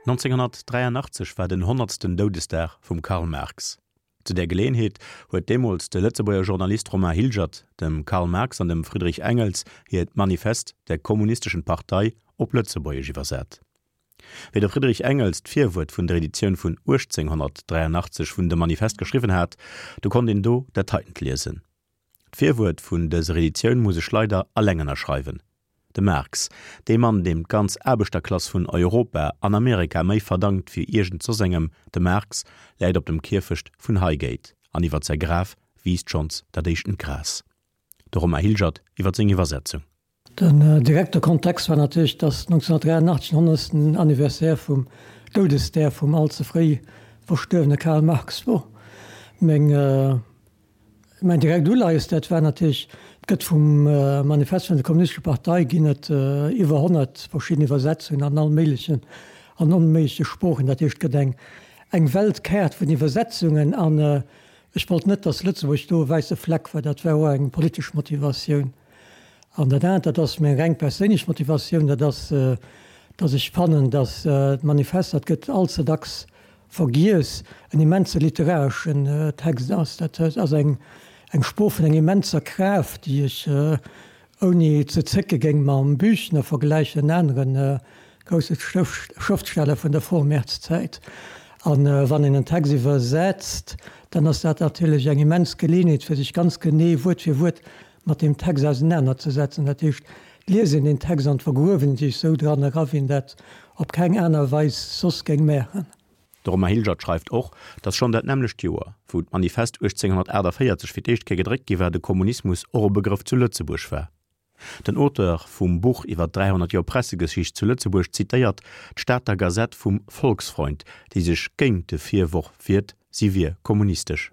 1983 war den honnertsten Doudesdag vum Karl Marx. Zu där Geleeënheet huet deemools de Lëtzebuerger Journalist Romain Hilgert dem Karl Marx an dem Friedrich Engels hiert Manifest der Kommunistischen Partei op Lëtzebuergesch iwwersat. Wéi de Friedrich Engels d'Virwuert vun der Editioun vun 1883 vun dem Manifest geschriwwen hat, du konnt een do dat heitent liesen, D'Virwuert vun dëser Editioun muss ech leider alleng ënnerschreiwen. De Marx, dee Mann, deem d'ganz Aarbechterklass vun Europa an Amerika méi verdankt wéi iergend soss engem, de Marx läit op dem Kierfecht vun Highgate an iwwert säi Graf wiisst schonns dat éischtent Gras. De Romain Hilgert iwwert seng Iwwersetzung. Den direkte Kontext war natierlech, datt 1983 den honnertsten Anniversaire vum Doudesdag vum all ze fréi verstuerwene Karl Marx wor. Meng, mäin direkt Uleies, dat war natierlech, et gëtt vum Manifest vun der Kommunistescher Partei ginn et iwwer 100 verschidden Iwwersetzungen an all méiglechen an onméigleche Sproochen. Dat heescht, et gëtt eng, eng Weltkaart vun Iwwersetzungen an ech wollt net, datt Lëtzebuerg do e wäisse Fleck war. Dat war och eng politesch Motivatioun. An dat anert, dat ass meng reng perséinlech Motivatioun, dat ass, dass ech fannen, dass d'Manifest, dat gëtt all ze dacks vergiess, en immense literareschen Text ass. Dat ass eng Sprooch vun enger immenser Kraaft, déi ech ouni ze zécke géing mam Büchner vergläichen, en anere grousse Schrëftsteller vun der Vormärz-Zäit. A wann een en Text iwwersetzt, dann ass dat natierlech eng immens Geleeënheet, fir sech ganz genee Wuert fir Wuert mat deem Text ausenanerzesetzen. Dat heescht, d'Liesen deen Text an d'Vergruewen sech esou dran era, wéi een dat op keng aner Weis soss géing maachen. De Romain Hilgert schreift och, datt schonn dat nämmlecht Joer, wou d'Manifest 1848 fir d'éischt Kéier gedréckt gi war, de Kommunismus och e Begrëff zu Lëtzebuerg war. Den Auteur vum Buch iwwer 300 Joer Pressegeschicht zu Lëtzebuerg zitéiert d'Stater Gazette vum Volksfreund, déi sech géint de Virworf wiert, si wier kommunistesch.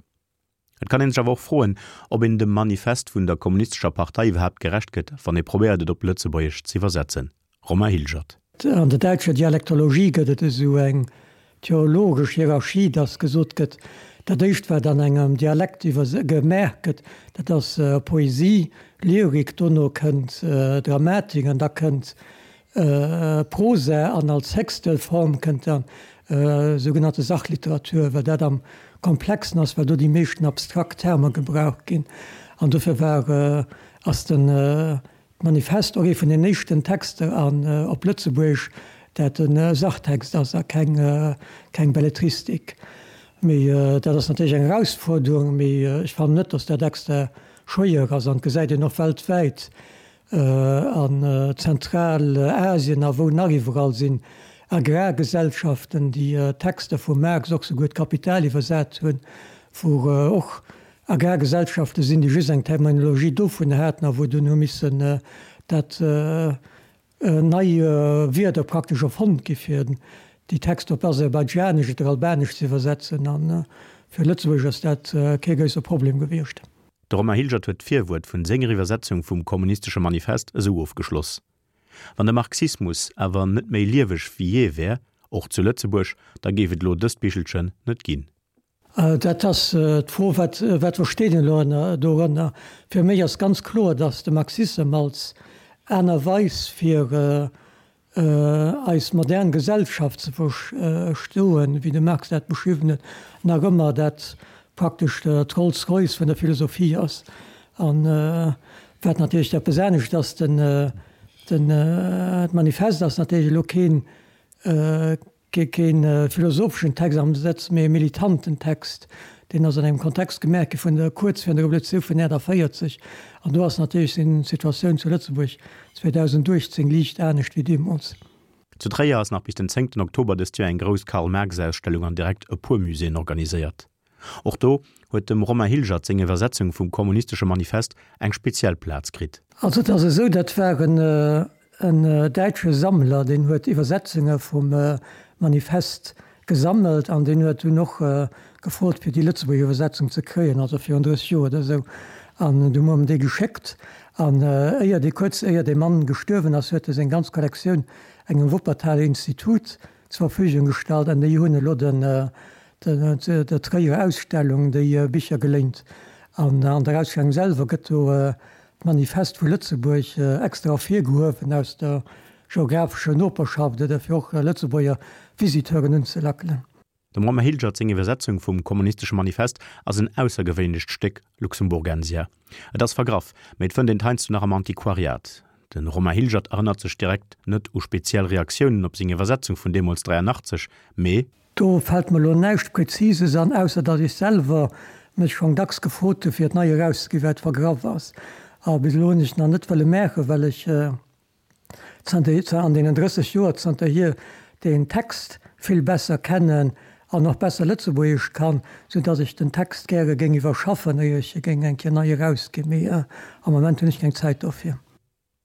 Et kann een sech awer och froen, ob een dem Manifest vun der Kommunistescher Partei iwwerhaapt gerecht gëtt, wann ee probéiert et op Lëtzebuergesch z'iwwersetzen. Romain Hilgert. An der däitscher Dialektologie gëtt et esou eng theologesch Hierarchie, datt gesot gëtt, dat éischt wat an engem Dialekt gemaach gëtt, dat ass Poesie, Lyrik, dono kënnt Dramatik an da kënnt Prosa an als héchste Form kënnt dann sougenannte Sachliteratur, well dat am komplexen ass, well do déi meeschten abstrakt Termer gebraucht ginn. An dofir war, ass den d'Manifest och ee vun den éischten Texter an op Lëtzebuergesch, dat e Sachtext ass a keng keng Belletristik. Mee dat ass natierlech eng Erausfuerderung, mee ech fannen net, datt dat extra schwéier ass an et gesäit een och weltwäit, An Zentralasien a wou nach iwwerall sinn Agrargesellschaften, déi Texter vum Marx, och souguer d'Kapital iwwersat hunn, wou och Agrargesellschafte sinn, déi just eng Terminologie dovun haten a wou dunn hu missen dat nei Wierder praktesch erfonnt gi fir déi Texter op Aserbaidschanesch oder Albanesch ze iwwersetzen. A fir Lëtzebuerg ass dat kee grousse Problem gewiescht. De Romain Hilgert huet d'Virwuert vun senger Iwwersetzung vum Kommunistesche Manifest esou ofgeschloss, Wann de Marxismus awer net méi lieweg wéi jee wär, och zu Lëtzebuerg, da géif et elo dëst Bichelchen net ginn. Dat ass d'Fro, wat wat versteet een elo ënner dorënner? Fir mech ass ganz kloer, datt de Marxissem als aner Weis fir eis modern Gesellschaft ze verstoen, wéi de Marx dat beschriwwen huet, nach ëmmer dat praktesch d'Rolls-Royce vun der Philosophie ass. An wat natierlech eppes anescht ass, den, den, d'Manifest ass natierlech elo keen, Kee philosopheschen Text am Sëtz, mee e militanten Text. Deen ass an engem Kontext gemaach gi vun der, kuerz virun der Revolutioun vun 48. An do ass natierlech seng Situatioun zu Lëtzebuerg 2018 liicht anescht wéi deemools. Zu Tréier ass nach bis den zéngten Oktober dëst Joer eng grouss Karl-Marx-Ausstellung an direkt e puer Muséeën organiséiert. Och do huet dem Romain Hilgert seng Iwwersetzung vum Kommunistesche Manifest eng speziell Plaz kritt. Also et ass esou, dat war en däitsche Sammler, deen huet Iwwersetzunge vum Manifest gesammelt an deen huet dunn och gefrot fir déi lëtzebuergesch Iwwersetzung ze kréien, also virun 30 Joer oder esou. An du hu mer em déi geschéckt an éier dee, kuerz éier dee Mann gestuerwen ass, huet e seng ganz Kollektioun engem Wuppertaler Institut zur Verfügung gestallt an déi hunn elo den der Tréierer Ausstellung déi Bicher geléint. An an der Ausstellung selwer gëtt do d'Manifest vu Lëtzebuerg extra ervirgehuewen aus der. geographescher Noperschaft oder fir och Lëtzebuerger Visiteuren unzelackelen. Dem Romain Hilgert seng Iwwersetzung vum Kommunistesche Manifest ass en aussergewéinlecht Stéck Luxemburgensia. Et ass vergraff, mee et fënnt een et heiansdo nach am Antiquariat. De Romain Hilgert erënnert sech direkt net u speziell Reaktiounen op seng Iwwersetzung vun deemools 83, mee. Do fält mer elo näischt Präzises an, ausser datt ech selwer mech schonn dacks gefrot hu fir et nei erauszeginn, well et vergraff ass. A bis elo hunn ech et nach net wëlle maachen, well ech zanter an deenen 30 Joer zanterhier deen Text vill besser kennen an och besser Lëtzebuergesch kann, sou datt ech den Text gäre géing iwwerschaffen, éier ech e géing eng Kéier nei erausginn. Mee am Moment hunn ech keng Zäit dofir.